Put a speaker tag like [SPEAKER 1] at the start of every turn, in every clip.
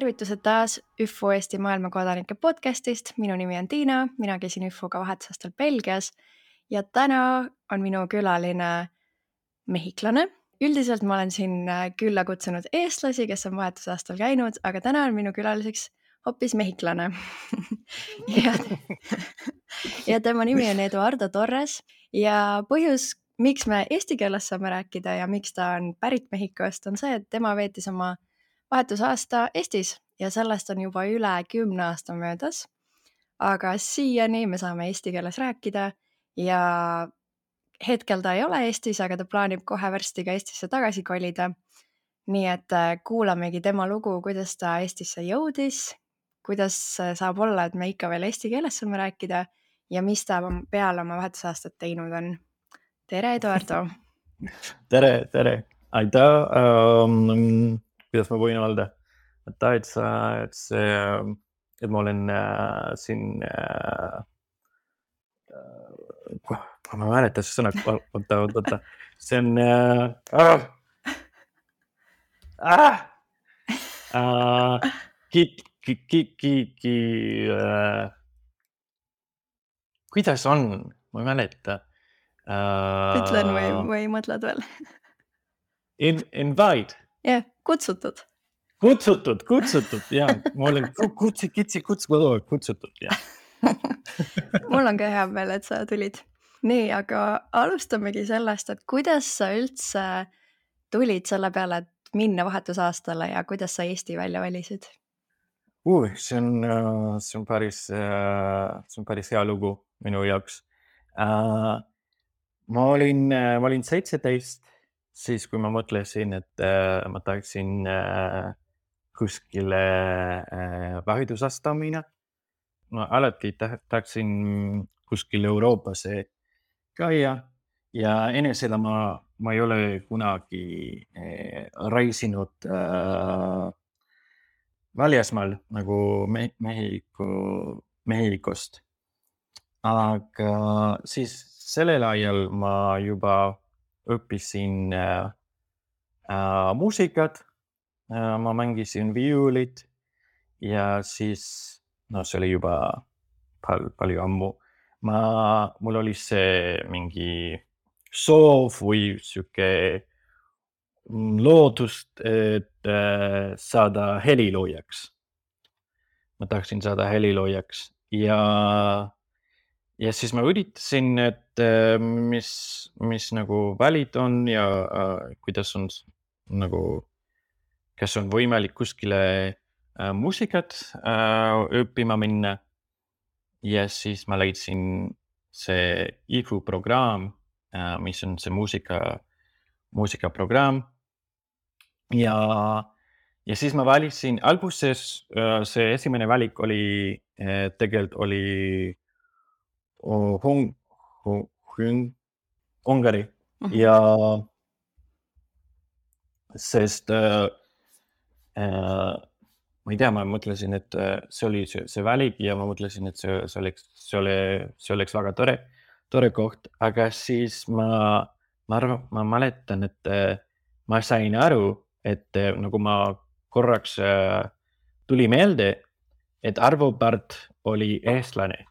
[SPEAKER 1] Tervitused taas ÜFO Eesti maailmakodanike podcastist. Minu nimi on Tiina, mina käisin ÜFO-ga vahetusaastal Belgias ja täna on minu külaline mehhiklane. Üldiselt ma olen siin külla kutsunud eestlasi, kes on vahetusaastal käinud, aga täna on minu külaliseks hoopis mehhiklane. ja tema nimi on Eduardo Torres ja põhjus, miks me eesti keeles saame rääkida ja miks ta on pärit Mehhikost, on see, et tema veetis oma vahetusaasta Eestis ja sellest on juba üle 10 aasta möödas, aga siiani me saame eesti keeles rääkida ja hetkel ta ei ole Eestis, aga ta plaanib kohe varsti ka Eestisse tagasi kolida. Nii et kuulamegi tema lugu, kuidas ta Eestisse jõudis, kuidas saab olla, et me ikka veel eesti keeles saame rääkida ja mis ta peale oma vahetusaastat teinud on. Tere, Eduardo!
[SPEAKER 2] Tere! Aitäh! Kuidas ma võin öelda? Et ma olen siin... Ma mäletan see sõna, oota. See on... Kuidas on? Ma ei mäleta.
[SPEAKER 1] Ütlen või mõtled veel?
[SPEAKER 2] Invite.
[SPEAKER 1] Jah, kutsutud.
[SPEAKER 2] Kutsutud, jah. Ma olen kutsutud, jah.
[SPEAKER 1] Mul on ka hea meel, et sa tulid. Nii, aga alustamegi sellest, et kuidas sa üldse tulid selle peale, et minna vahetusaastale ja kuidas sa Eesti välja valisid?
[SPEAKER 2] See on päris hea lugu minu jaoks. Ma olin 17, siis kui ma mõtlesin, et ma tahaksin kuskile vahetusaasta minna. Ma alati tahaksin kuskil Euroopasse käia ja enne seda ma ei ole kunagi reisinud väljasmaal nagu Mehhikost. Aga siis sellel ajal ma juba õppisin muusikat, ma mängisin viiulit ja siis, see oli juba palju ammu. Mul oli see mingi soov või siuke loodust, et saada heliloojaks. Ma tahtsin saada heliloojaks ja siis ma üritasin, et mis nagu valid on ja kuidas on nagu, kas on võimalik kuskile muusikat õppima minna. Ja siis ma leidsin see IFU programm, mis on see muusikaprogramm. Ja siis ma valisin, alguses see esimene valik oli, tegelikult oli Ungari ja sest ma ei tea, ma mõtlesin, et see oli see valik ja ma mõtlesin, et see oleks väga tore koht, aga siis ma mäletan, et ma sain aru, et nagu ma korraks tuli meelde, et Arvo Pärt oli eestlane.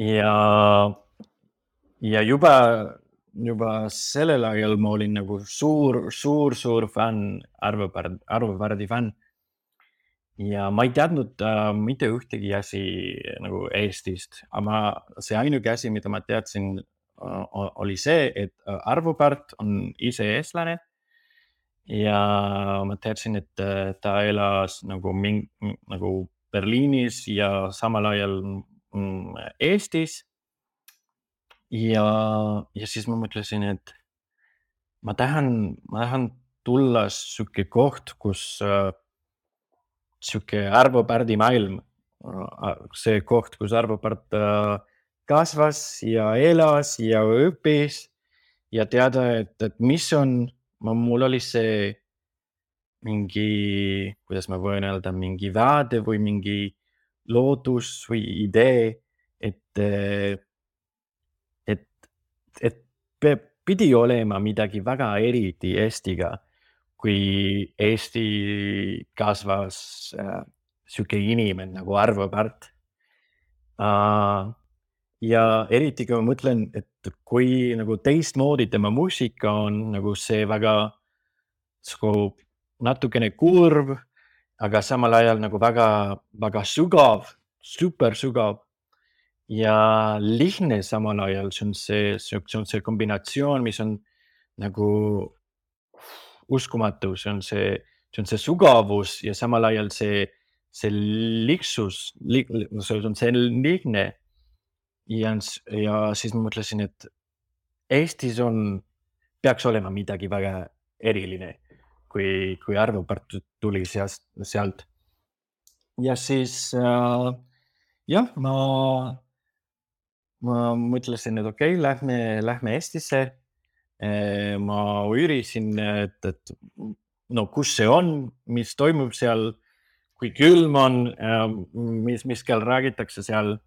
[SPEAKER 2] Ja juba sellel ajal ma olin nagu suur fänn, Arvo Pärdi fänn. Ja ma ei teadnud mitte ühtegi asi nagu Eestist, aga see ainuke asi, mida ma teadsin, oli see, et Arvo Pärt on ise eestlane ja ma teadsin, et ta elas nagu Berliinis ja samal ajal Eestis. Ja siis ma mõtlesin, et ma tahan tulla siuke koht, kus siuke Arvo Pärdi maailm, see koht, kus Arvo Pärt kasvas ja elas ja õppis ja teada, et mis on, mul oli see mingi, kuidas ma võin öelda, mingi vaade või mingi lootus või idee, et pidi olema midagi väga eriti Eestiga, kui Eesti kasvas sihuke inimene nagu Arvo Pärt. Ja eriti kui ma mõtlen, et kui nagu teistmoodi tema muusika on nagu see väga natukene kurb, aga samal ajal nagu väga sügav, super sügav ja lihtne samal ajal. See on see kombinatsioon, mis on nagu uskumatu, see on see sügavus ja samal ajal see lihtsus, see on see lihtne. Ja siis ma mõtlesin, et Eestis peaks olema midagi väga eriline, kui Arvo Pärt tuli sealt. Ja siis jah, ma mõtlesin, et okei, lähme Eestisse. Ma uurisin, et no kus see on, mis toimub seal, kui külm on, mis keel räägitakse seal.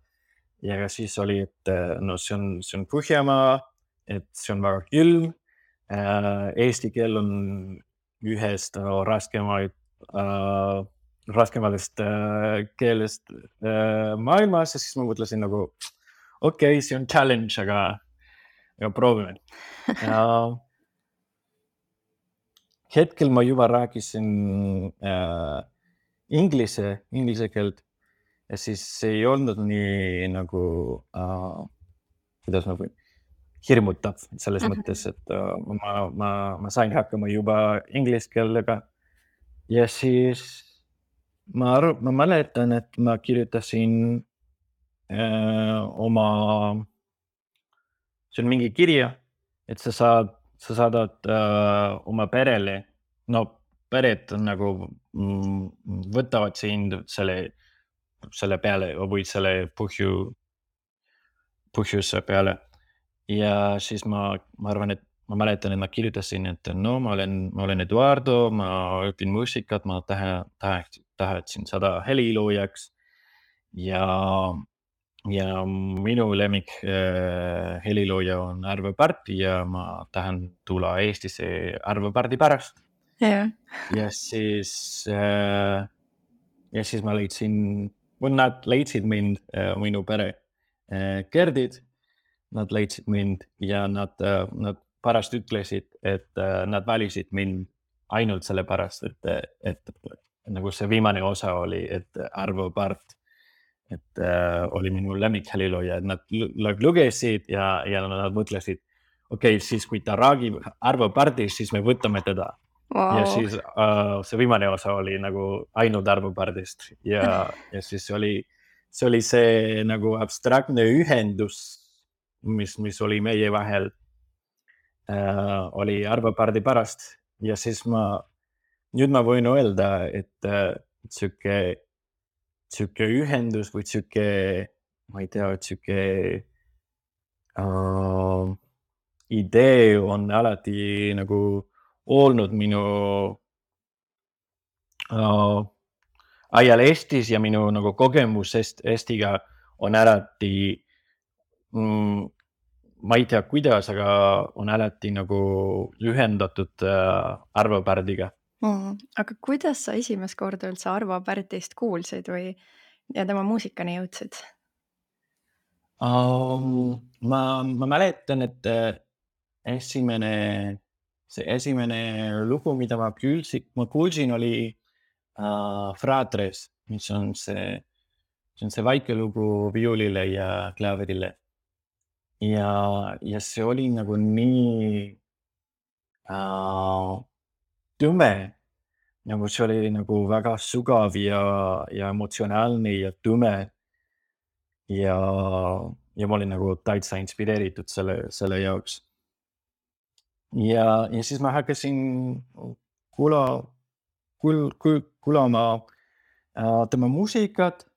[SPEAKER 2] Ja siis oli, et no see on Põhjamaa, et see on väga külm. Eesti keel on ühest raskematest keelest maailmas ja siis ma mõtlesin nagu okei, see on challenge, aga proovime. Hetkel ma juba rääkisin inglise keelt ja siis ei olnud nii nagu, kuidas ma võin, hirmutav selles mõttes, et ma sain hakkama juba inglise keelega. Ja siis ma mäletan, et ma kirjutasin see on mingi kirja, et sa saadad oma perele, no pered nagu võtavad sind selle peale või selle põhjuse peale. Ja siis ma arvan, et ma mäletan, et ma kirjutasin, et no ma olen Eduardo, ma õpin muusikat, ma tahtsin saada heliloojaks ja minu lemmik helilooja on Arvo Pärt ja ma tahan tulla Eestisse Arvo Pärdi pärast. Ja siis ma nad leidsid mind, minu pere, Gerdid, nad leidsid mind ja nad pärast ütlesid, et nad valisid mind ainult sellepärast, et nagu see viimane osa oli, et Arvo Pärt, et oli minu lemmikheliilooja, et nad lugesid ja nad mõtlesid, okei, siis kui ta räägib Arvo Pärdist, siis me võtame teda. Wow. Ja siis see viimane osa oli nagu ainult Arvo Pärdist ja siis see oli see nagu abstraktne ühendus, mis oli meie vahel, oli Arvo Pärdi pärast ja siis nüüd ma võin öelda, et sihuke ühendus või sihuke, ma ei tea, sihuke idee on alati nagu olnud minu ajal Eestis ja minu nagu kogemus Eestiga on alati, ma ei tea kuidas, aga on alati nagu ühendatud Arvo Pärdiga.
[SPEAKER 1] Aga kuidas sa esimest korda üldse Arvo Pärtist kuulsid ja tema muusikani jõudsid?
[SPEAKER 2] Ma mäletan, et esimene lugu, mida ma kuulsin, oli Fratres, mis on see väike lugu viiulile ja klaaverile. Ja see oli nagu nii tume, nagu see oli nagu väga sügav ja emotsionaalne ja tume. Ja ma olin nagu täitsa inspireeritud selle jaoks. Ja siis ma hakkasin kuulama tema muusikat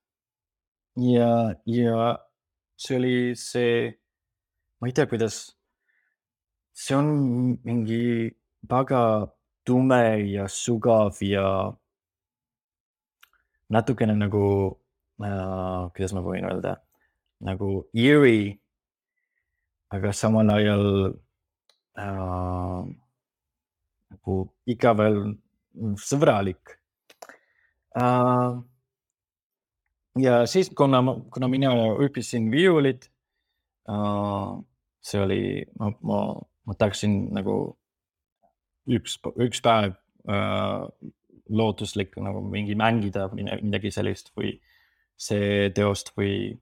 [SPEAKER 2] ja see oli ma ei tea, kuidas, see on mingi väga tume ja sügav ja natukene nagu, kuidas ma võin öelda, nagu eerie, aga samal ajal nagu ikka veel sõbralik. Ja siis, kuna mina õppisin viiulit, see oli, ma tahaksin nagu üks päev lootuslik nagu mingi mängida midagi sellist või see teost või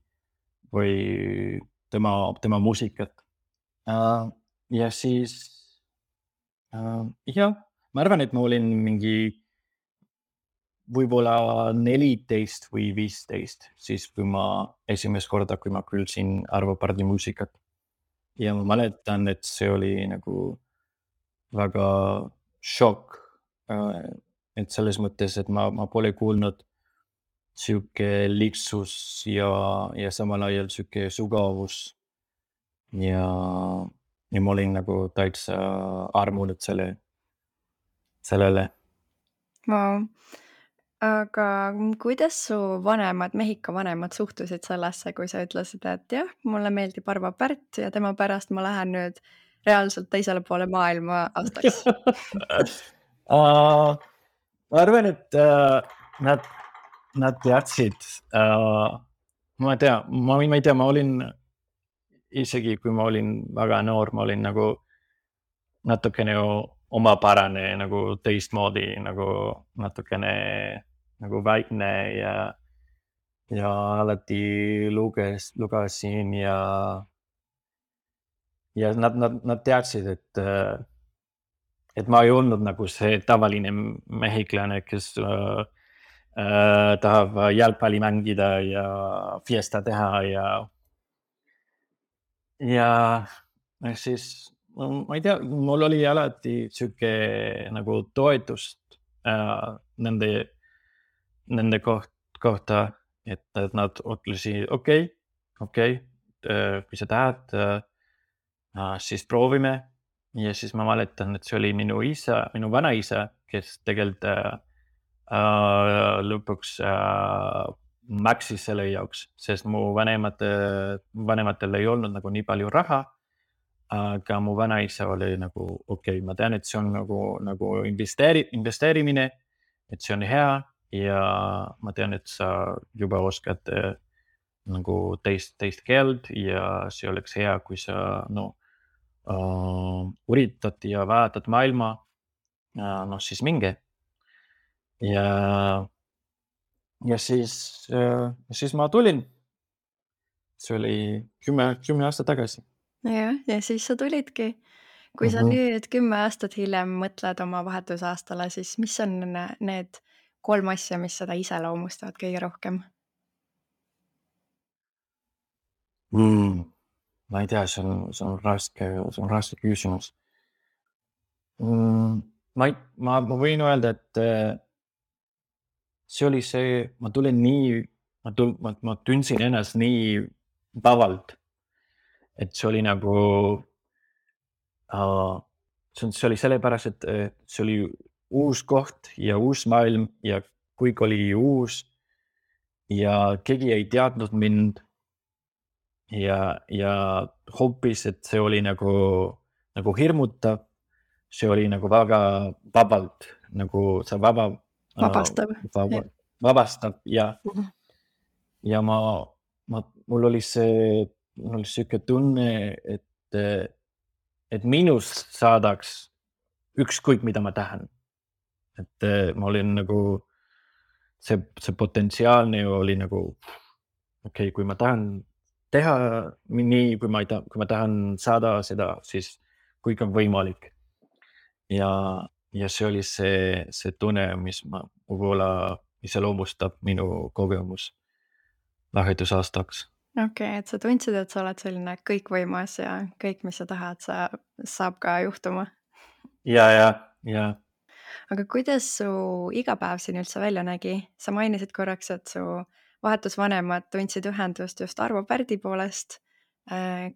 [SPEAKER 2] tema muusikat. Ja siis jah, ma arvan, et ma olin mingi võib-olla 14 või 15, siis kui ma esimest korda, kui ma kuulsin Arvo Pärdi muusikat. Ja ma mäletan, et see oli nagu väga šokk. Et selles mõttes, et ma pole kuulnud siuke lihtsus ja samal ajal siuke sügavus. Ja ma olin nagu täitsa armunud sellele.
[SPEAKER 1] Wow. Aga kuidas su Mehhiko vanemad suhtusid sellesse, kui sa ütlesid, et jah, mulle meeldib Arvo Pärt ja tema pärast ma lähen nüüd reaalselt teisele poole maailma aastaks?
[SPEAKER 2] Ma arvan, et nad teadsid, ma ei tea, ma olin isegi kui ma olin väga noor, ma olin nagu natukene omapärane nagu teistmoodi, nagu natukene nagu väikne ja alati lugesin ja nad teadsid, et ma ei olnud nagu see tavaline mehhiklane, kes tahab jalgpalli mängida ja fiesta teha ja siis ma ei tea, mul oli alati siuke nagu toetust nende kohta, et nad ütlesid okei, kui sa tahad, siis proovime. Ja siis ma mäletan, et see oli minu vanaisa, kes tegelikult lõpuks maksis selle jaoks, sest mu vanematel ei olnud nagu nii palju raha. Aga mu vanaisa oli nagu okei, ma tean, et see on nagu investeerimine, et see on hea ja ma tean, et sa juba oskad nagu teist keelt ja see oleks hea, kui sa üritad ja vaatad maailma, siis minge. Ja siis ma tulin. See oli 10 aastat tagasi.
[SPEAKER 1] Jah, ja siis sa tulidki. Kui sa nüüd 10 aastat hiljem mõtled oma vahetusaastale, siis mis on need 3 asja, mis seda iseloomustavad kõige rohkem?
[SPEAKER 2] Ma ei tea, see on raske küsimus. Ma võin öelda, et see oli see, ma tundsin ennast nii vabalt, et see oli nagu, see oli sellepärast, et see oli uus koht ja uus maailm ja kõik oli uus ja keegi ei teadnud mind ja hoopis, et see oli nagu hirmutav, see oli nagu väga vabalt, nagu sa
[SPEAKER 1] Vabastav.
[SPEAKER 2] vabastab ja mul oli siuke tunne, et minust saadaks ükskõik, mida ma tahan. Et ma olin nagu, see potentsiaalne oli nagu, okei, kui ma tahan teha nii, kui ma tahan saada seda, siis kõik on võimalik. Ja see oli see tunne, mis võib-olla iseloomustab minu kogemus vahetusaastaks.
[SPEAKER 1] Okei, et sa tundsid, et sa oled selline kõikvõimas ja kõik, mis sa tahad, saab ka juhtuma.
[SPEAKER 2] Ja.
[SPEAKER 1] Aga kuidas su igapäev siin üldse välja nägi? Sa mainisid korraks, et su vahetusvanemad tundsid ühendust just Arvo Pärdi poolest.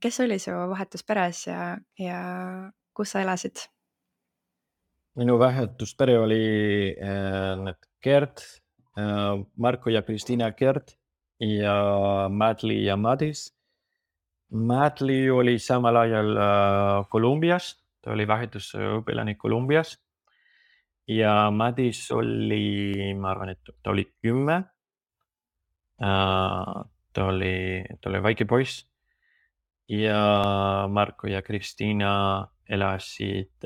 [SPEAKER 1] Kes oli su vahetusperes ja kus sa elasid?
[SPEAKER 2] Minu vahetuspere oli need Gert, Marko ja Kristiina Gert ja Madli ja Madis. Madli oli samal ajal Kolumbias, ta oli vahetusõpilane Kolumbias ja Madis oli, ma arvan, et ta oli 10. Ta oli väike poiss ja Marko ja Kristiina elasid,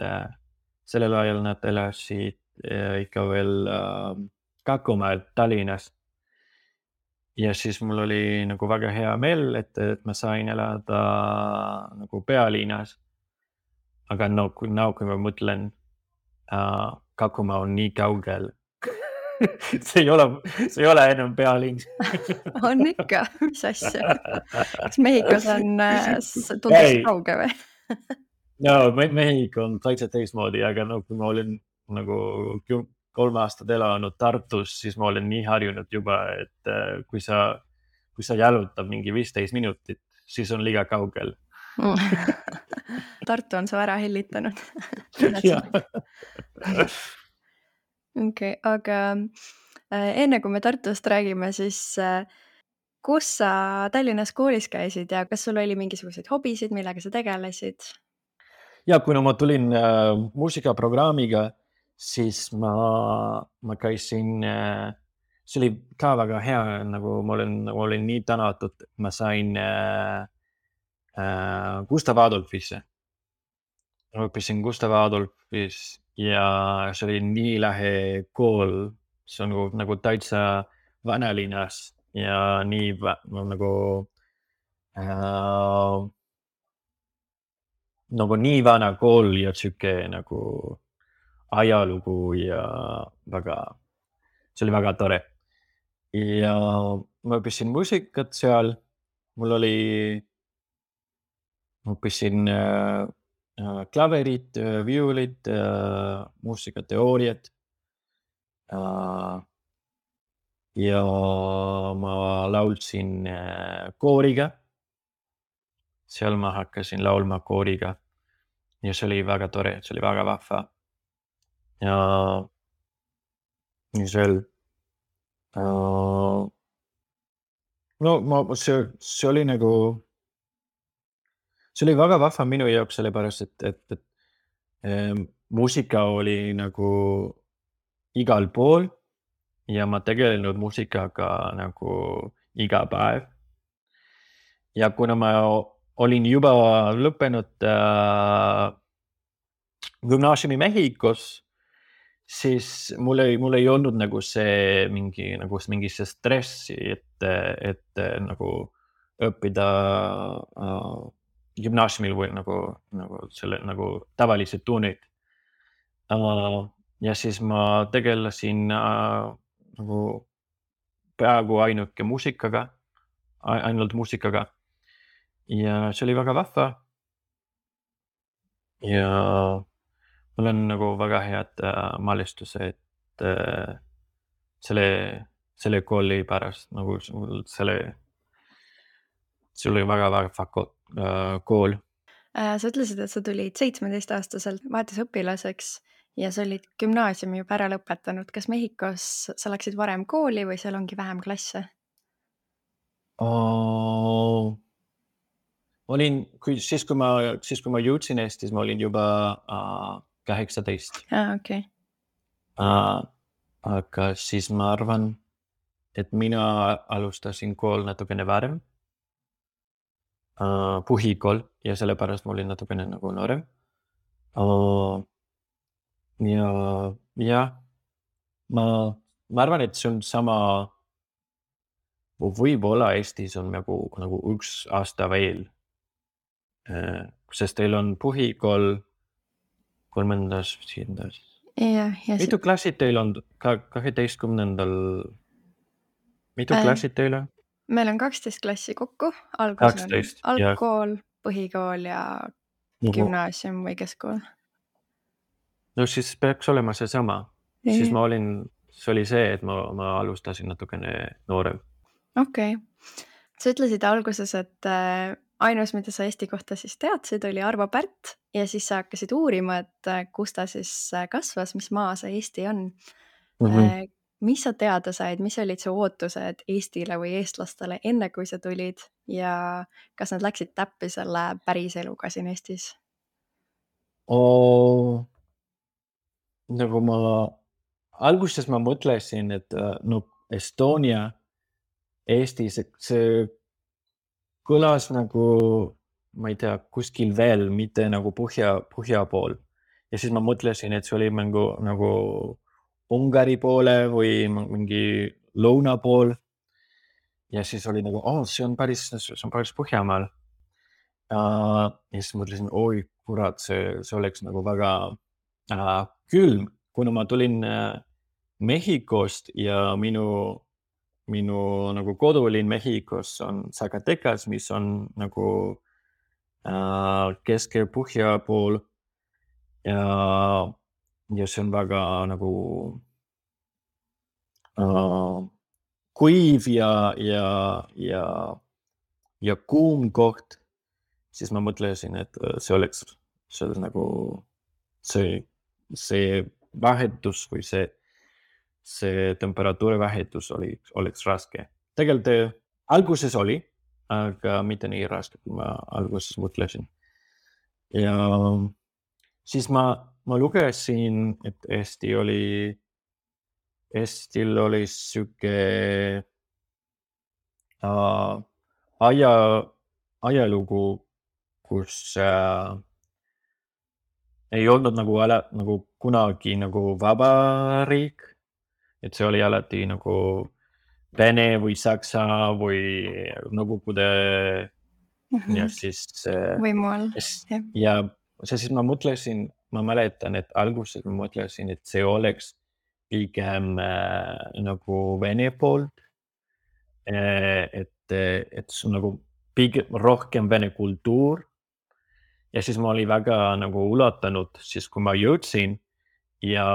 [SPEAKER 2] sellel ajal nad elasid ikka veel Kakumäel Tallinnas. Ja siis mul oli nagu väga hea meel, et ma sain elada nagu pealinnas. Aga kui ma mõtlen, Kakumaa on nii kaugel. see ei ole enam pealinn.
[SPEAKER 1] On ikka, mis asja? Kas Mehhikos on tundus kauge või?
[SPEAKER 2] No, Mehhiko on täitsa teistmoodi, aga kui ma olin nagu 3 aastat elanud Tartus, siis ma olen nii harjunud juba, et kui sa jalutad mingi 15 minutit, siis on liiga kaugel.
[SPEAKER 1] Tartu on su ära hellitanud. Okei, aga enne kui me Tartust räägime, siis kus sa Tallinnas koolis käisid ja kas sul oli mingisuguseid hobisid, millega sa tegelesid?
[SPEAKER 2] Ja kuna ma tulin muusikaprogrammiga, siis ma käisin, see oli ka väga hea, nagu ma olin nii tänatud, et ma sain Gustav Adolfisse. Ma õppisin Gustav Adolfis ja see oli nii lahe kool. See on nagu täitsa vanalinnas ja nii nagu nii vana kool ja siuke nagu ajalugu ja see oli väga tore. Ja ma õppisin muusikat seal. Ma õppisin klaverit, viulit, muusikateooriat. Ja ma laulsin kooriga. Seal ma hakkasin laulma kooriga. Ja see oli väga tore, see oli väga vahva. Ja seal see oli nagu, see oli väga vahva minu jaoks, sellepärast, et muusika oli nagu igal pool ja ma tegelenud muusikaga nagu iga päev. Ja kuna ma olin juba lõppenud gümnaasiumi Mehhikos, siis mul ei olnud nagu mingi see stressi, et nagu õppida gümnaasiumil või nagu tavalised tunnid. Ja siis ma tegelesin nagu peaaegu ainult muusikaga. Ja see oli väga vahva. Ja mul on nagu väga head mälestused selle kooli pärast, nagu see oli väga vahva kool.
[SPEAKER 1] Sa ütlesid, et sa tulid 17-aastaselt vahetusõpilaseks ja sa olid gümnaasiumi juba ära lõpetanud. Kas Mehhikos sa läksid varem kooli või seal ongi vähem klasse?
[SPEAKER 2] Siis kui ma jõudsin Eestis, ma olin juba 18.
[SPEAKER 1] Okay.
[SPEAKER 2] Aga siis ma arvan, et mina alustasin kool natukene varem. Põhikool ja sellepärast ma olin natukene nagu noorem. Ja ma arvan, et see on sama, võib-olla Eestis on nagu 1 aasta veel. Sest teil on põhikool 3. Mitu klassid teil on 12. Mitu klassid teil on?
[SPEAKER 1] Meil on 12 klassi kokku. Algus
[SPEAKER 2] 12,
[SPEAKER 1] on algkool, põhikool ja gümnaasium või keskkool.
[SPEAKER 2] No siis peaks olema seesama. Siis see oli see, et ma alustasin natukene noorem.
[SPEAKER 1] Okei. Sa ütlesid alguses, et ainus, mida sa Eesti kohta siis teadsid, oli Arvo Pärt ja siis sa hakkasid uurima, et kus ta siis kasvas, mis maa see Eesti on. Mis sa teada said, mis olid su ootused Eestile või eestlastele enne, kui sa tulid ja kas nad läksid täppi selle päris eluga siin Eestis?
[SPEAKER 2] nagu alguses ma mõtlesin, et no Estonia, Eesti, see kõlas nagu, ma ei tea, kuskil veel, mitte nagu põhja pool. Ja siis ma mõtlesin, et see oli nagu Ungari poole või mingi lõuna pool. Ja siis oli nagu, see on päris Põhjamaal. Ja siis mõtlesin, oi kurat, see oleks nagu väga külm, kuna ma tulin Mehhikost ja minu nagu kodulinn Mehhikos on Zacatecas, mis on nagu Kesk-Põhja pool. Ja see on väga nagu kuiv ja kuum koht, siis ma mõtlesin, et see oleks nagu see vahetus või see temperatuuri vahetus oleks raske. Tegelikult alguses oli, aga mitte nii raske, kui ma alguses mõtlesin. Ja siis ma lugesin, et Eestil oli siuke ajalugu, kus ei olnud nagu kunagi nagu vabariik, et see oli alati nagu Vene või Saksa või Nõukogude ja siis
[SPEAKER 1] võimu all,
[SPEAKER 2] ja siis ma mõtlesin, ma mäletan, et alguses ma mõtlesin, et see oleks pigem nagu Vene poolt, et see on nagu pigem rohkem Vene kultuur. Ja siis ma olin väga nagu üllatunud, siis kui ma jõudsin ja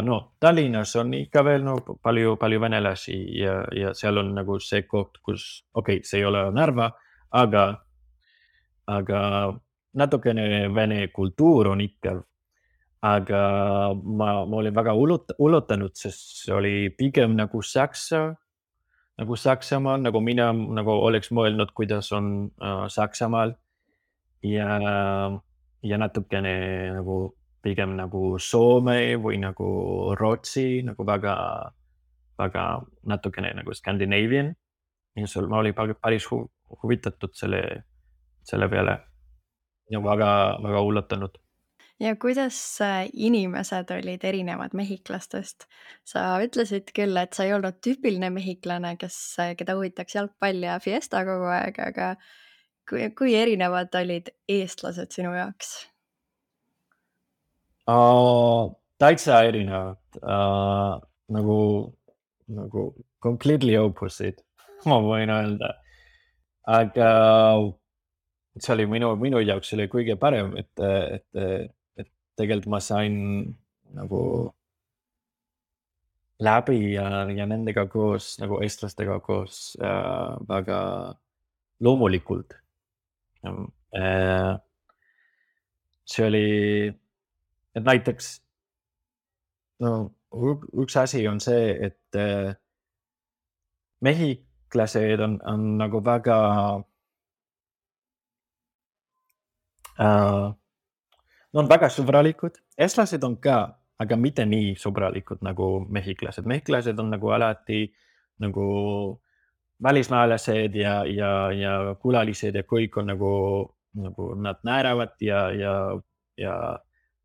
[SPEAKER 2] no Tallinnas on ikka veel palju venelasi ja seal on nagu see koht, kus see ei ole Narva, aga natukene Vene kultuur on ikka. Aga ma olin väga üllatunud, sest see oli pigem nagu Saksamaal, nagu mina nagu oleks mõelnud, kuidas on Saksamaal ja natukene nagu pigem nagu Soome või nagu Rootsi, nagu väga natukene nagu Scandinavian. Ja ma olin päris huvitatud selle peale ja väga üllatunud.
[SPEAKER 1] Ja kuidas inimesed olid erinevad mehhiklastest? Sa ütlesid küll, et sa ei olnud tüüpiline mehhiklane, keda huvitaks jalgpall ja fiesta kogu aeg, aga kui erinevad olid eestlased sinu jaoks?
[SPEAKER 2] Täitsa erinevad, nagu completely opposite, ma võin öelda. Aga see oli minu jaoks oli kõige parem, et tegelikult ma sain nagu läbi ja nendega koos, nagu eestlastega koos väga loomulikult. See oli, et näiteks üks asi on see, et mehhiklased on nagu väga on väga sõbralikud, eestlased on ka, aga mitte nii sõbralikud nagu mehhiklased. Mehhiklased on nagu alati nagu välismaalased ja külalised ja kõik on nagu nad naeravad ja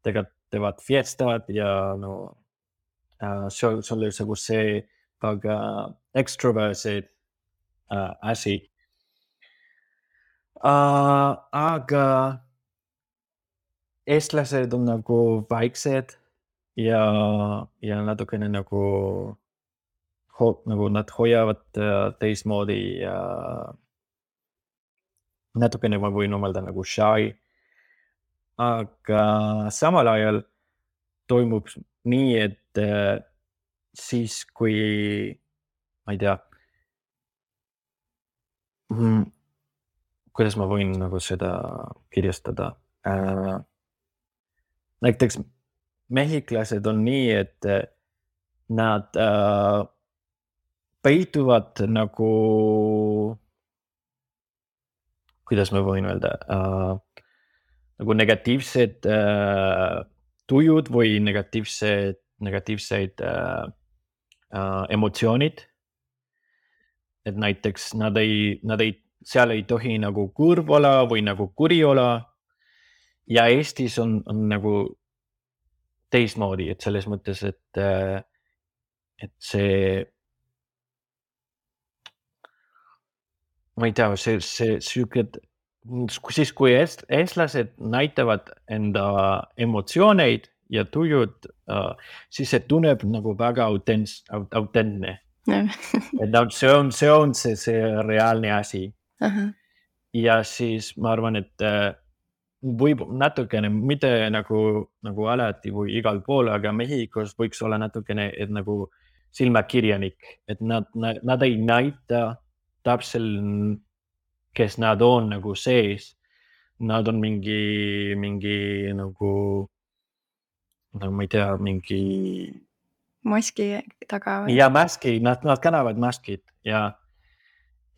[SPEAKER 2] teevad fiestad ja see oli nagu see väga extroverted asi. Aga eestlased on nagu vaiksed ja natukene nagu nad hoiavad teistmoodi ja natukene ma võin mõelda nagu shy. Aga samal ajal toimub nii, et siis kui, ma ei tea, kuidas ma võin nagu seda kirjastada. Näiteks mehhiklased on nii, et nad peituvad nagu, kuidas ma võin öelda, nagu negatiivsed tujud või negatiivseid emotsioonid. Et näiteks seal ei tohi nagu kurb olla või nagu kuri olla. Ja Eestis on nagu teistmoodi, et selles mõttes, et see, ma ei tea, see siis kui eestlased näitavad enda emotsioneid ja tujud, siis see tunneb nagu väga autentne. Et see on see reaalne asi. Ja siis ma arvan, et võib natukene, mitte nagu alati või igal pool, aga Mehhikos võiks olla natukene, et nagu silmakirjanik, et nad ei näita täpselt, kes nad on nagu sees. Nad on mingi nagu ma ei tea, mingi
[SPEAKER 1] maski taga või?
[SPEAKER 2] Ja maski, nad kannavad maskid ja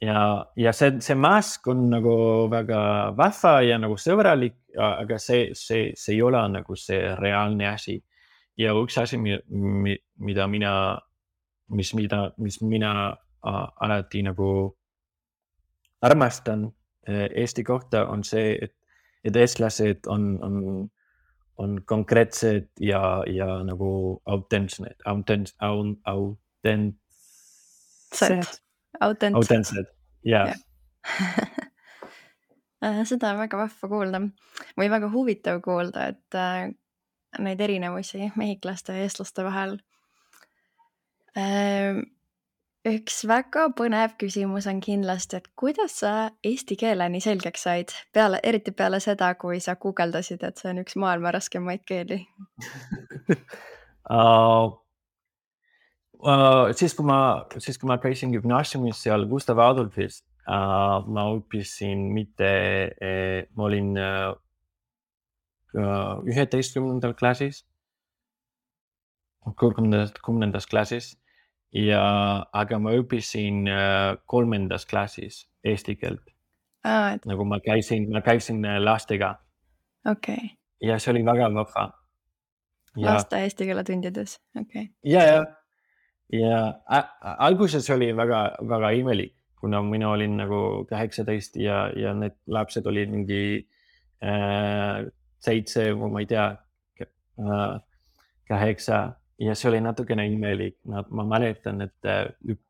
[SPEAKER 2] see mask on nagu väga vahva ja nagu sõbralik, aga see ei ole nagu see reaalne asi. Ja üks asi, mida mina alati nagu armastan Eesti kohta, on see, et eestlased on konkreetsed ja nagu autentsed. Autentsed, jah.
[SPEAKER 1] Seda on väga vahva kuulda või väga huvitav kuulda, et neid erinevusi mehhiklaste ja eestlaste vahel. Üks väga põnev küsimus on kindlasti, et kuidas sa eesti keele nii selgeks said, eriti peale seda, kui sa guugeldasid, et see on üks maailma raskemaid keeli?
[SPEAKER 2] Siis kui ma käisin gümnaasiumis seal Gustav Adolfis, ma õppisin ma olin 11. klassis, 10. klassis, aga ma õppisin 3. klassis eesti keelt. Nagu ma käisin lastega.
[SPEAKER 1] Okay.
[SPEAKER 2] Ja see oli väga vahva.
[SPEAKER 1] Laste eesti keele tundides, okay.
[SPEAKER 2] Ja alguses oli väga, väga imelik, kuna mina olin nagu 18 ja need lapsed olid mingi 7 või ma ei tea, 8 ja see oli natukene imelik. Ma mäletan, et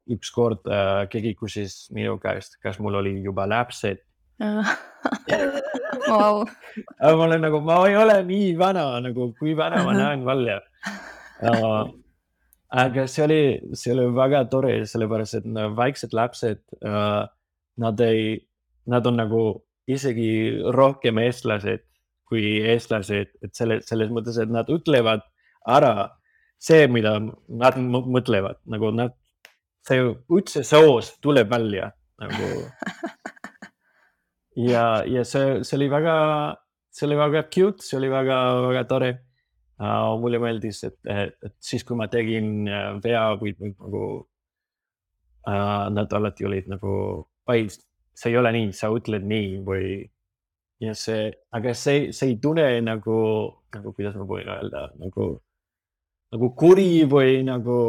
[SPEAKER 2] üks kord keegi küsis minu käest, kas mul oli juba lapsed.
[SPEAKER 1] Wow.
[SPEAKER 2] Ma olen nagu, ma ei ole nii vana, nagu kui vana ma näen välja. Aga see oli väga tore, sellepärast, et väiksed lapsed, nad on nagu isegi rohkem eestlased kui eestlased, et selles mõttes, et nad ütlevad ära see, mida nad mõtlevad, nagu see üldse soos tuleb välja nagu. Ja see oli väga cute, see oli väga tore. Mulle meeldis, et siis kui ma tegin vea või nagu nad alati olid nagu, see ei ole nii, sa ütled nii või ja aga see ei tunne nagu kuidas ma võin öelda, nagu kuri või nagu,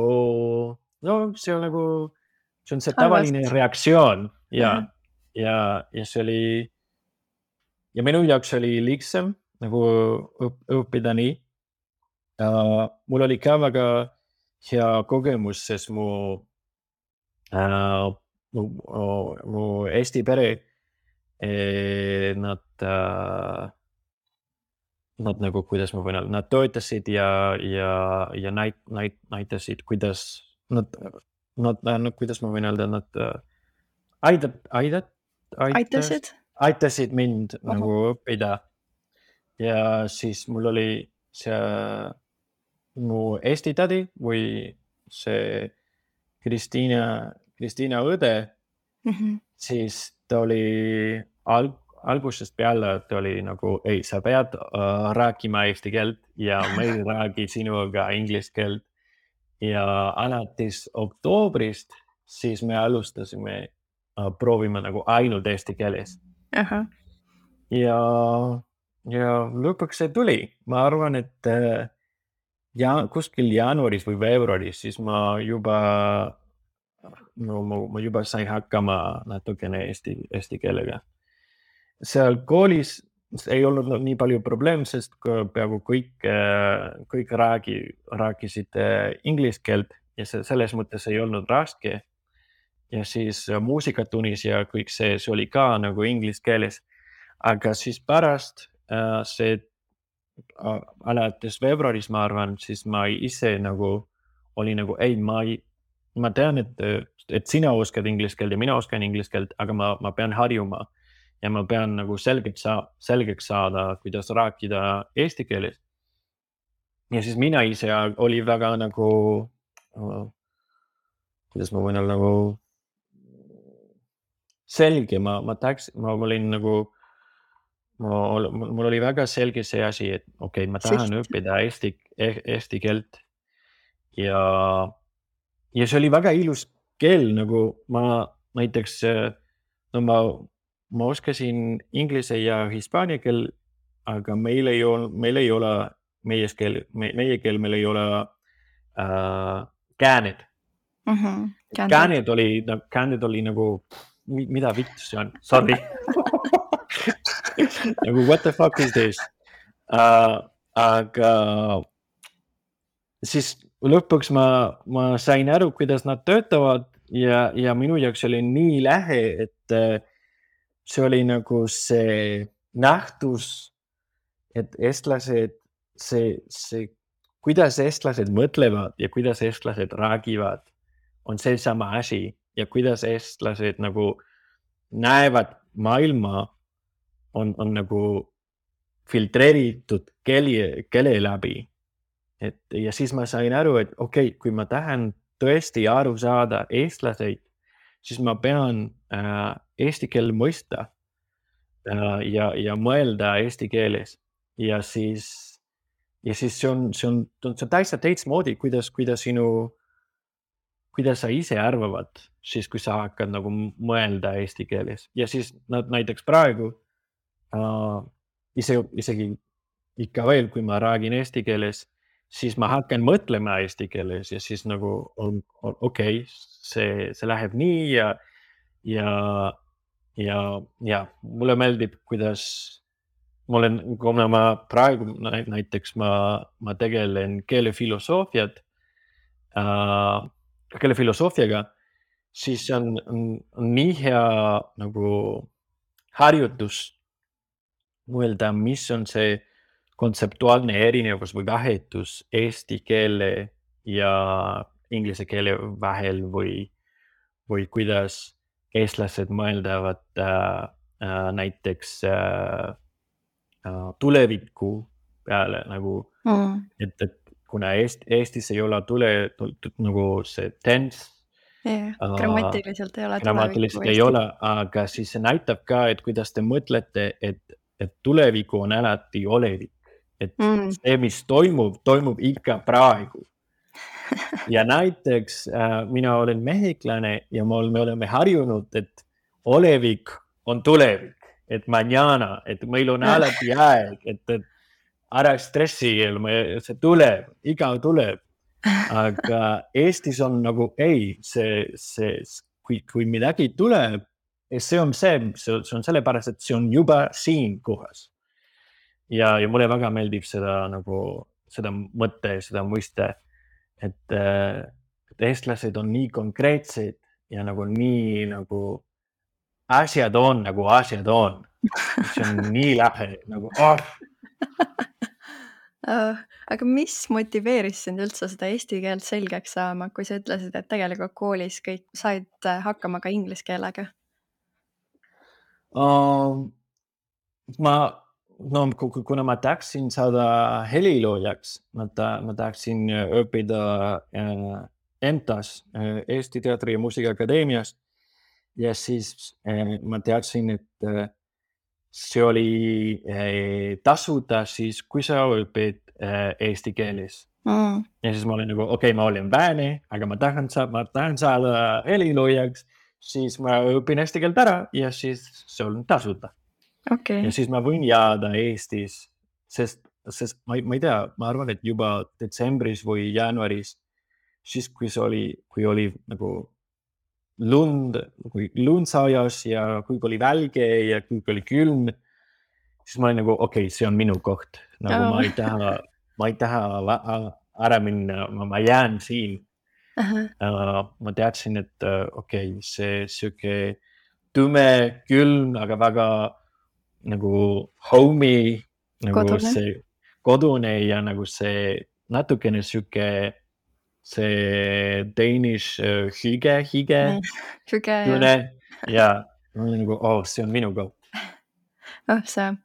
[SPEAKER 2] no see on see tavaline reaktsioon ja see oli, ja minu jaoks oli lihtsam nagu õppida nii. Mul oli ka väga hea kogemus, sest mu Eesti pere, nad nagu, kuidas ma võin öelda, nad toetasid ja näitasid, kuidas kuidas ma võin öelda, nad aitasid mind nagu õppida. Ja siis mul oli see mu Eesti tädi või see Kristiina õde, siis ta oli algusest peale, ta oli nagu, ei, sa pead rääkima eesti keelt ja ma ei räägi sinuga inglise keelt. Ja alates oktoobrist, siis me alustasime proovima nagu ainult eesti keeles. Ja ja lõpuks see tuli. Ma arvan, et kuskil jaanuaris või veebruaris, siis ma juba sain hakkama natukene eesti keelega. Seal koolis ei olnud nii palju probleem, sest peaaegu kõik rääkisid inglise keelt ja selles mõttes ei olnud raske. Ja siis muusikatunnis ja kõik see oli ka nagu inglise keeles. Aga siis pärast see alates veebruaris, ma arvan, siis ma ise nagu oli nagu, ei, ma tean, et sina oskad inglise keelt ja mina oskan inglise keelt, aga ma pean harjuma ja ma pean nagu selgeks saada, kuidas rääkida eesti keeles. Ja siis mina ise oli väga nagu, kuidas ma võin olla nagu selge, ma olin nagu, mul oli väga selge see asi, et okei, ma tahan õppida eesti keelt ja see oli väga ilus keel, nagu ma näiteks, no ma oskasin inglise ja hispaania keel, aga meil ei ole meie keel, meil ei ole kääned. Kääned oli nagu, mida vittu see on? Sorry. Nagu, what the fuck is this? Aga siis lõpuks ma sain aru, kuidas nad töötavad ja minu jaoks oli nii lähe, et see oli nagu see nähtus, et eestlased, kuidas eestlased mõtlevad ja kuidas eestlased räägivad, on see sama asi ja kuidas eestlased nagu näevad maailma, on nagu filtreeritud keele läbi. Ja siis ma sain aru, et okei, kui ma tahan tõesti aru saada eestlaseid, siis ma pean eesti keel mõista ja mõelda eesti keeles. Ja siis see on täitsa teistmoodi, kuidas sa ise arvavad, siis kui sa hakkad nagu mõelda eesti keeles. Ja siis näiteks praegu isegi ikka veel, kui ma räägin eesti keeles, siis ma hakkan mõtlema eesti keeles ja siis nagu okei, see läheb nii ja mulle meeldib, kuidas kuna ma praegu näiteks ma tegelen keelefilosoofiaga, siis on nii hea nagu harjutus mõelda, mis on see kontseptuaalne erinevus või vahetus eesti keele ja inglise keele vahel või kuidas eestlased mõeldavad näiteks tuleviku peale nagu, et kuna Eestis ei ole nagu see tense,
[SPEAKER 1] grammatiliselt
[SPEAKER 2] ei ole, aga siis see näitab ka, et kuidas te mõtlete, et tuleviku on alati olevik. Et see, mis toimub ikka praegu. Ja näiteks mina olen mehiklane ja me oleme harjunud, et olevik on tulevik, et mañana, et meil on alati aeg, et ära stressi, see tuleb, iga tuleb. Aga Eestis on nagu ei, kui midagi tuleb, see on sellepärast, et see on juba siin kohas. Ja mulle väga meeldib seda mõtte, seda mõiste, et eestlased on nii konkreetsed ja nagu nii nagu asjad on. See on nii lähe nagu
[SPEAKER 1] Aga mis motiveeris sind üldse seda eesti keelt selgeks saama, kui sa ütlesid, et tegelikult koolis kõik said hakkama ka inglise keelega?
[SPEAKER 2] Kuna ma tahaksin saada heliloojaks, ma tahaksin õppida EMTA-s, Eesti Teatri- ja Muusikaakadeemias. Ja siis ma teadsin, et see oli tasuta siis, kui sa õpid eesti keeles. Ja siis ma olin nagu, okei, ma olen vääne, aga ma tahan saada heliloojaks, siis ma õpin eesti keelt ära ja siis see on tasuta.
[SPEAKER 1] okei.
[SPEAKER 2] ja siis ma võin jääda Eestis, sest ma ei tea, ma arvan, et juba detsembris või jaanuaris, siis kui oli nagu kui lund sajas ja kui oli välge ja kui oli külm, siis ma olin nagu, okei, see on minu koht. Nagu
[SPEAKER 1] Oo.
[SPEAKER 2] ma ei taha ära minna, ma jään siin.
[SPEAKER 1] Ahah.
[SPEAKER 2] Ma teadsin, et okei, see siuke tume, külm, aga väga nagu homey, nagu
[SPEAKER 1] Kodune.
[SPEAKER 2] see kodune ja nagu see natukene siuke see Danish hige
[SPEAKER 1] Hüge ja
[SPEAKER 2] tunne ja ma olin nagu, see on minu koht.
[SPEAKER 1] see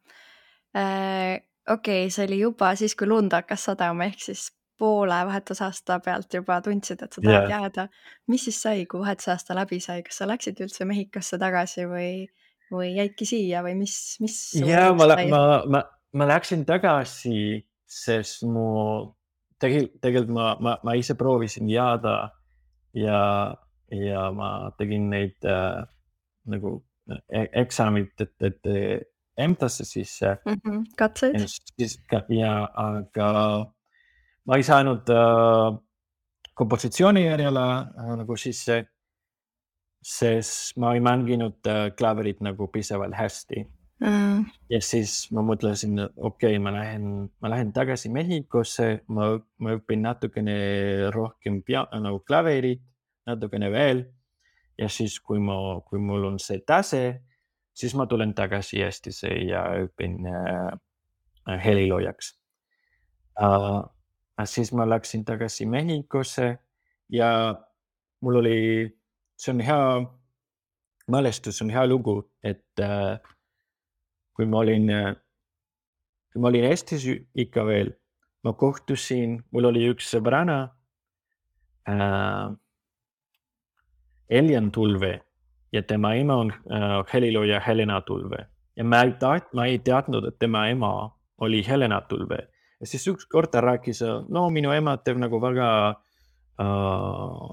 [SPEAKER 1] okei, see oli juba siis, kui lund hakkas sadama, ehk siis poole vahetusaasta pealt juba tundsid, et sa tahad
[SPEAKER 2] Ja,
[SPEAKER 1] jääda. Mis siis sai, kui vahetusaasta läbi sai, kas sa läksid üldse Mehhikosse tagasi või jäidki siia või mis su
[SPEAKER 2] ja
[SPEAKER 1] elust sai?
[SPEAKER 2] ma läksin tagasi, sest tegelikult ma ise proovisin jääda ja, ja ma tegin neid nagu eksamid, et EMTA-sse sisse
[SPEAKER 1] Katseid?
[SPEAKER 2] ja siis aga ma ei saanud kompositsiooni järjele nagu sisse, sest ma ei mänginud klaverit nagu piisavalt hästi. Ja siis ma mõtlesin, okei, ma lähen tagasi Mehhikosse, ma õpin natukene rohkem nagu klaverit, natukene veel. Ja siis, kui mul on see tase, siis ma tulen tagasi Eestisse ja õpin heliloojaks. Siis ma läksin tagasi Mehhikosse ja mul oli, see on hea mälestus, on hea lugu, et kui ma olin Eestis ikka veel, ma kohtusin, mul oli üks sõbranna, Elian Tulve ja tema ema on helilooja Helena Tulve ja ma ei teadnud, et tema ema oli Helena Tulve. Ja siis ükskord ta rääkis, no minu ema teeb nagu väga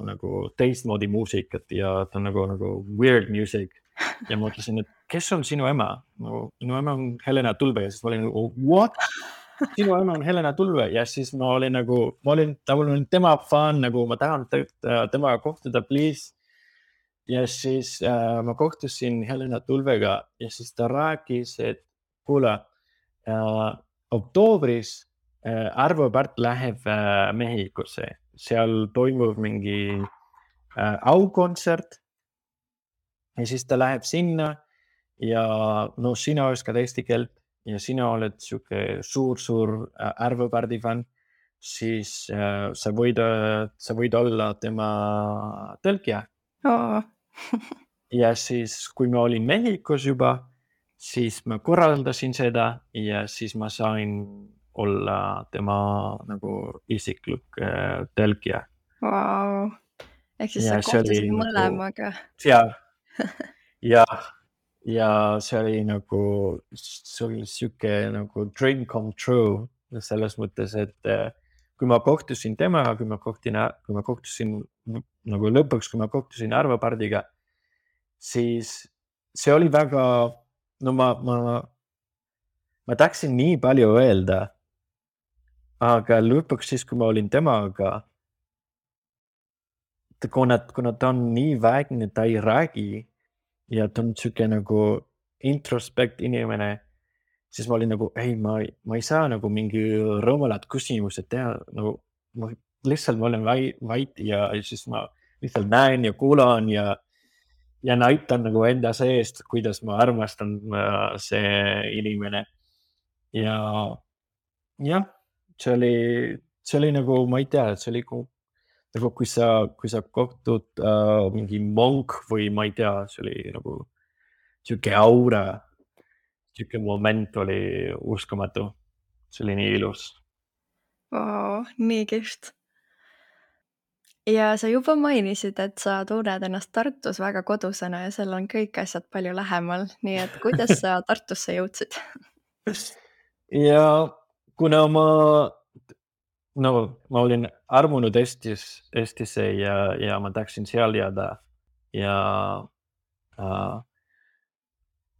[SPEAKER 2] nagu teistmoodi muusikat ja ta on nagu weird music. Ja ma mõtlesin, et kes on sinu ema? Minu ema on Helena Tulve ja siis ma olin nagu, what? Sinu ema on Helena Tulve ja siis ma olin tema fänn, nagu ma tahan temaga kohtuda, please. Ja siis ma kohtusin Helena Tulvega ja siis ta rääkis, et kuule, oktoobris Arvo Pärt läheb Mehhikosse, seal toimub mingi aukontsert ja siis ta läheb sinna ja no sina oskad eesti keelt ja sina oled siuke suur Arvo Pärdi fänn, siis sa võid olla tema tõlkija.
[SPEAKER 1] Oo.
[SPEAKER 2] Ja siis, kui ma olin Mehhikos juba, siis ma korraldasin seda ja siis ma sain olla tema nagu isiklik tõlkija.
[SPEAKER 1] Vau. Ehk siis sa
[SPEAKER 2] Ja see oli
[SPEAKER 1] kohtusid
[SPEAKER 2] nagu
[SPEAKER 1] mõlemaga.
[SPEAKER 2] ja see oli siuke nagu dream come true selles mõttes, et kui ma kohtusin temaga, kui ma kohtusin nagu lõpuks, kui ma kohtusin Arvo Pärdiga, siis see oli väga, no ma tahtsin nii palju öelda, aga lõpuks siis, kui ma olin temaga, kuna ta on nii väikne, ta ei räägi ja ta on siuke nagu introspekt inimene, siis ma olin nagu, ei, ma ei saa nagu mingi rumalad küsimused teha, nagu ma lihtsalt ma olen vait ja siis ma lihtsalt näen ja kuulan ja näitan nagu enda seest, kuidas ma armastan see inimene. Ja jah, see oli nagu, ma ei tea, see oli nagu kui sa kohtud mingi monk või ma ei tea, see oli nagu siuke aura, siuke moment oli uskumatu. See oli nii ilus.
[SPEAKER 1] Vau, nii kihvt. Ja sa juba mainisid, et sa tunned ennast Tartus väga kodusena ja seal on kõik asjad palju lähemal, nii et kuidas sa Tartusse jõudsid?
[SPEAKER 2] Ja kuna ma olin armunud Eestisse ja ma tahtsin seal jääda ja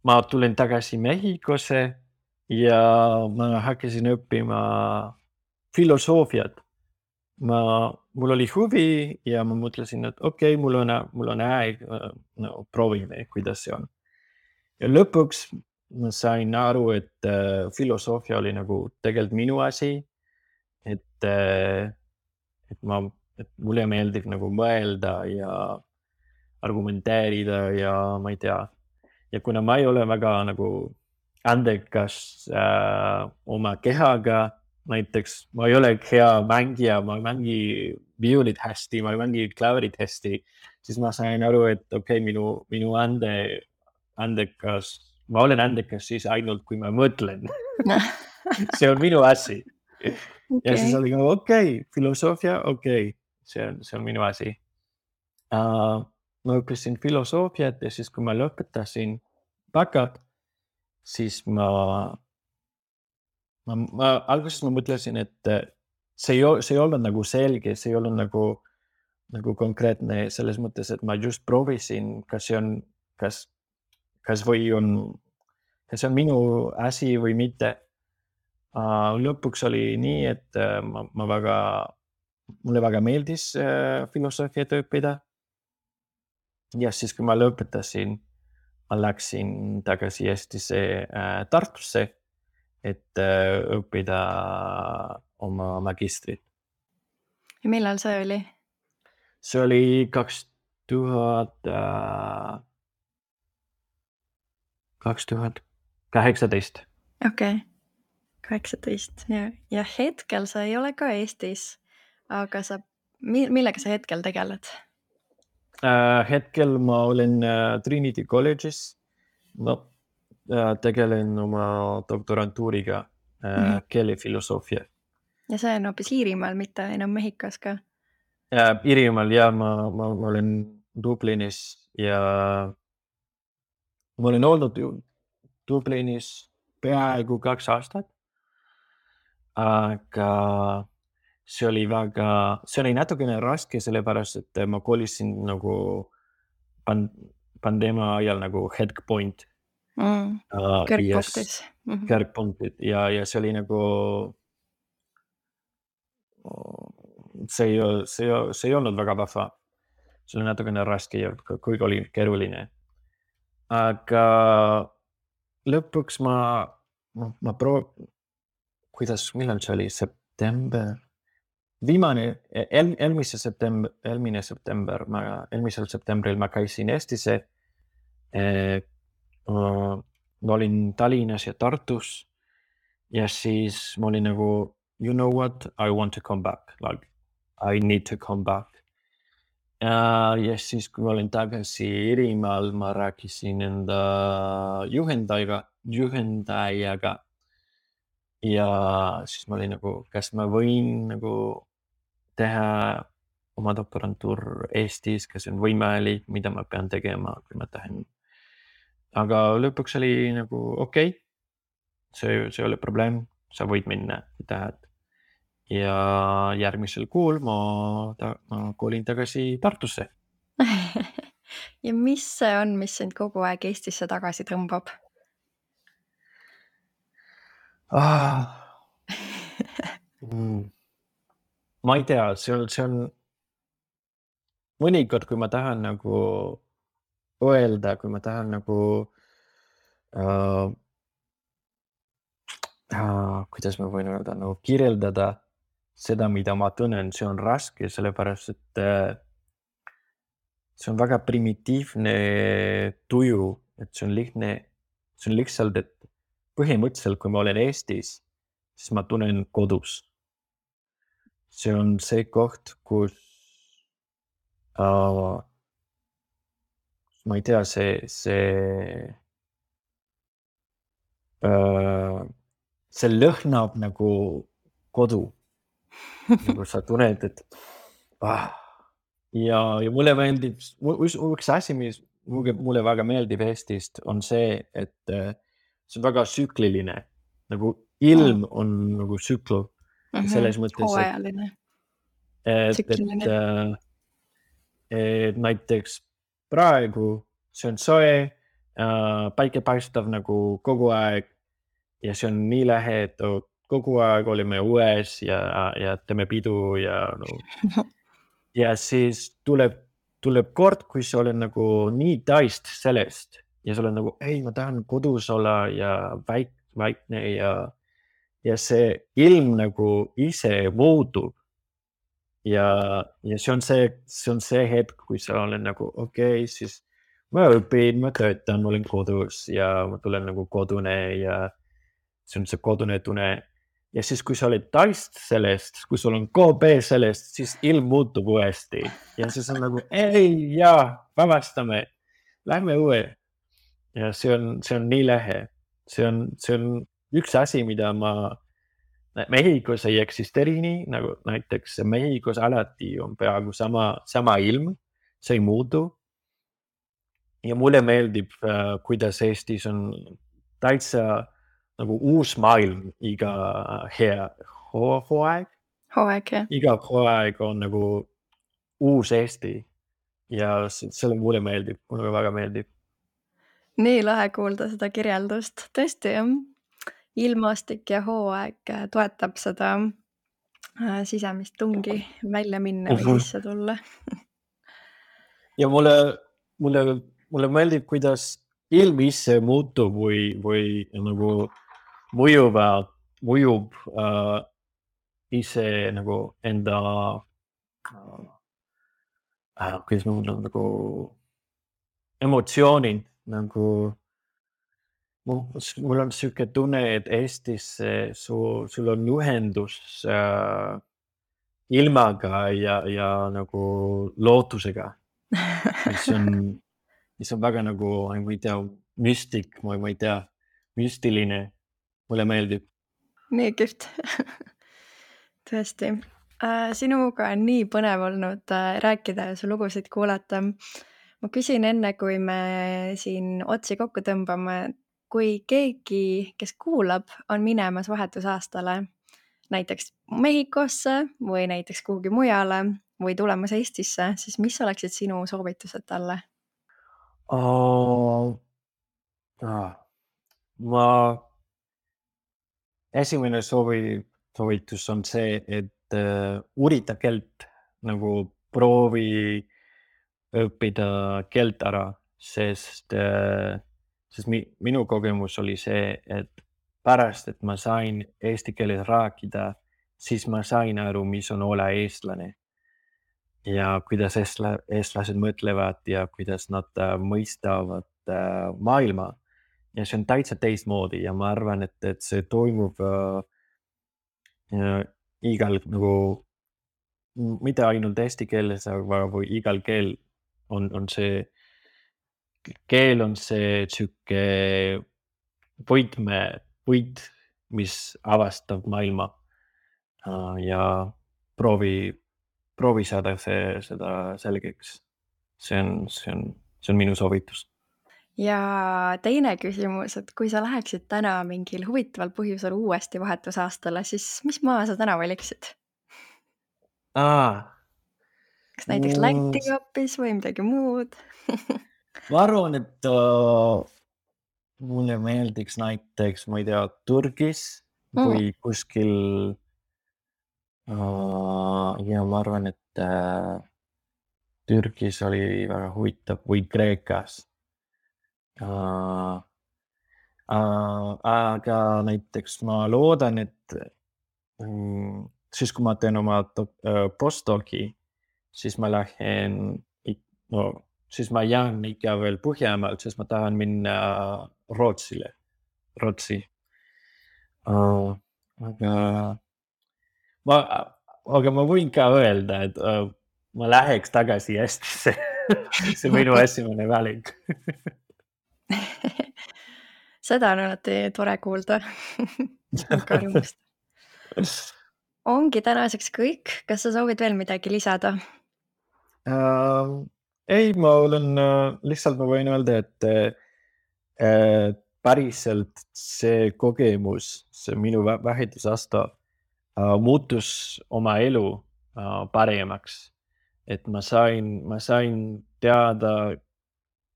[SPEAKER 2] ma tulin tagasi Mehhikosse ja ma hakkasin õppima filosoofiat. Mul oli huvi ja ma mõtlesin, et okei, mul on aeg, no proovime, kuidas see on. Ja lõpuks ma sain aru, et filosoofia oli nagu tegelikult minu asi, et mulle meeldib nagu mõelda ja argumenteerida ja ma ei tea. Ja kuna ma ei ole väga nagu andekas oma kehaga, näiteks ma ei ole hea mängija, ma ei mängi viulit hästi, ma ei mängi klavrit hästi, siis ma sain aru, et okei, minu andekas, ma olen andekas siis ainult, kui ma mõtlen. See on minu asi. Ja siis oli okei, filosoofia, okei, see on minu asi. Ma õppisin filosoofiat ja siis, kui ma lõpetasin bakat, siis alguses ma mõtlesin, et see ei olnud nagu selge, see ei olnud nagu konkreetne selles mõttes, et ma just proovisin, kas see on minu asi või mitte. Lõpuks oli nii, et mulle väga meeldis filosoofiat õppida. Ja siis, kui ma lõpetasin, ma läksin tagasi Eestisse Tartusse, et õppida oma magistrit.
[SPEAKER 1] Ja millal see oli?
[SPEAKER 2] See oli 2018.
[SPEAKER 1] Okei, 18. Ja hetkel sa ei ole ka Eestis, aga millega sa hetkel tegeled?
[SPEAKER 2] Hetkel ma olen Trinity College'is. Ma tegelen oma doktorantuuriga keelefilosoofia.
[SPEAKER 1] Ja see on hoopis Iirimaal, mitte enam Mehhikos ka?
[SPEAKER 2] Iirimaal ja ma olen Dublinis ja ma olen olnud Dublinis peaaegu 2 aastat. Aga see oli natukene raske, sellepärast, et ma kolisin nagu pandeemia ajal nagu headpoint.
[SPEAKER 1] Kõrgpunktis.
[SPEAKER 2] Kõrgpunktid ja see oli nagu see ei olnud väga vahva. See oli natukene raske ja kuigi oli keeruline. Aga lõpuks millal see oli? September? Eelmisel septembril ma käisin Eestisse. Ma olin Tallinnas ja Tartus ja siis ma olin nagu, you know what, I want to come back, like I need to come back. Ja siis, kui ma olin tagasi Iirimaal, ma rääkisin enda juhendajaga ja siis ma olin nagu, kas ma võin nagu teha oma doktorantuur Eestis, kas on võimalik, mida ma pean tegema, kui ma tahan. Aga lõpuks oli nagu okei, see ei ole probleem, sa võid minna, kui tahad. Ja järgmisel kuul ma kolin tagasi Tartusse.
[SPEAKER 1] Ja mis see on, mis sind kogu aeg Eestisse tagasi tõmbab?
[SPEAKER 2] Ma ei tea, see on mõnikord, kui ma tahan nagu öelda, kui ma tahan nagu kuidas ma võin öelda, nagu kirjeldada seda, mida ma tunnen, see on raske, sellepärast, et see on väga primitiivne tuju, et see on lihtsalt, et põhimõtteliselt, kui ma olen Eestis, siis ma tunnen kodus. See on see koht, kus ma ei tea, see lõhnab nagu kodu. Nagu sa tunned, et ja mulle meeldib, üks asi, mis mulle väga meeldib Eestist, on see, et see on väga tsükliline. Nagu ilm on nagu tsükl. Selles mõttes,
[SPEAKER 1] hooajaline.
[SPEAKER 2] et näiteks praegu see on soe, päike paistab nagu kogu aeg ja see on nii lahe, et kogu aeg olime õues ja teeme pidu ja siis tuleb kord, kui sa oled nagu nii täist sellest ja sa oled nagu, ei, ma tahan kodus olla ja vaikne ja see ilm nagu ise muutub. Ja see on see hetk, kui sa oled nagu, okei, siis ma õpin, ma töötan, ma olen kodus ja ma tulen nagu kodune ja see on see kodune tunne. Ja siis, kui sa oled täist sellest, kui sul on KB sellest, siis ilm muutub uuesti. Ja siis on nagu, ei, jaa, vabastame, lähme õue. Ja see on nii lahe. See on üks asi, mida Mehhikos ei eksisteeri nii, nagu näiteks Mehhikos alati on peaaegu sama ilm, see ei muutu. Ja mulle meeldib, kuidas Eestis on täitsa nagu uus maailm iga hooaeg.
[SPEAKER 1] Hooaeg, jah.
[SPEAKER 2] Iga hooaeg on nagu uus Eesti ja selle mulle meeldib, mulle väga meeldib.
[SPEAKER 1] Nii lahe kuulda seda kirjeldust. Tõesti, jah. Ilmastik ja hooaeg toetab seda sisemist tungi välja minna või sisse tulla.
[SPEAKER 2] Ja mulle meeldib, kuidas ilm ise muutub või nagu mõjub ise nagu enda kuidas ma mõtlen nagu emotsioonid nagu mul on siuke tunne, et Eestis sul on ühendus ilmaga ja nagu lootusega. mis on väga nagu, ma ei tea, müstik, ma ei tea, müstiline. Mulle meeldib.
[SPEAKER 1] Nii kihvt. Tõesti. Sinuga on nii põnev olnud rääkida ja su lugusid kuulata. Ma küsin enne, kui me siin otsi kokku tõmbame, kui keegi, kes kuulab, on minemas vahetusaastale näiteks Mehhikosse või näiteks kuhugi mujale või tulemas Eestisse, siis mis oleksid sinu soovitused talle?
[SPEAKER 2] Esimene soovitus on see, et uurita keelt, nagu proovi õppida keelt ära, sest minu kogemus oli see, et pärast, et ma sain eesti keeles rääkida, siis ma sain aru, mis on olla eestlane ja kuidas eestlased mõtlevad ja kuidas nad mõistavad maailma. Ja see on täitsa teistmoodi ja ma arvan, et see toimub igal nagu, mitte ainult eesti keeles, aga või igal keel on see siuke võit, mis avastab maailma ja proovi saada seda selgeks. See on minu soovitus.
[SPEAKER 1] Ja teine küsimus, et kui sa läheksid täna mingil huvitaval põhjusel uuesti vahetusaastale, siis mis maa sa täna valiksid? Kas näiteks Läti hoopis või midagi muud?
[SPEAKER 2] Ma arvan, et mulle meeldiks näiteks, ma ei tea, Türgis või kuskil ja ma arvan, et Türgis oli väga huvitav või Kreekas. Aga näiteks ma loodan, et siis kui ma teen oma postdoci, siis ma lähen, siis ma jään ikka veel Põhjamaalt, sest ma tahan minna Rootsi. Aga ma võin ka öelda, et ma läheks tagasi Eestisse. See on minu esimene valik.
[SPEAKER 1] Seda on alati tore kuulda. Väga rõõmust. Ongi tänaseks kõik. Kas sa soovid veel midagi lisada?
[SPEAKER 2] Ei, ma olen lihtsalt, ma võin öelda, et päriselt see kogemus, see minu vahetusaasta muutus oma elu paremaks. Et ma sain teada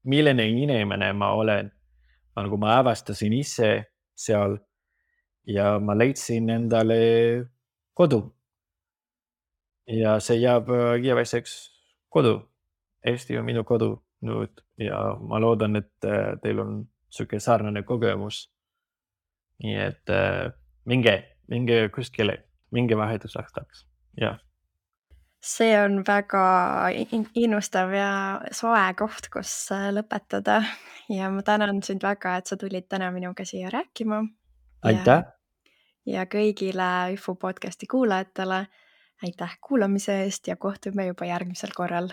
[SPEAKER 2] milline inimene ma olen. Nagu ma avastasin ise seal ja ma leidsin endale kodu. Ja see jääb igaveseks kodu. Eesti on minu kodu nüüd ja ma loodan, et teil on sihuke sarnane kogemus. Nii et minge kuskile, minge vahetusaastaks. Ja.
[SPEAKER 1] See on väga innustav ja soe koht, kus lõpetada ja ma tänan sind väga, et sa tulid täna minuga siia rääkima.
[SPEAKER 2] Aitäh!
[SPEAKER 1] Ja kõigile IFU podcasti kuulajatele aitäh kuulamise eest ja kohtume juba järgmisel korral.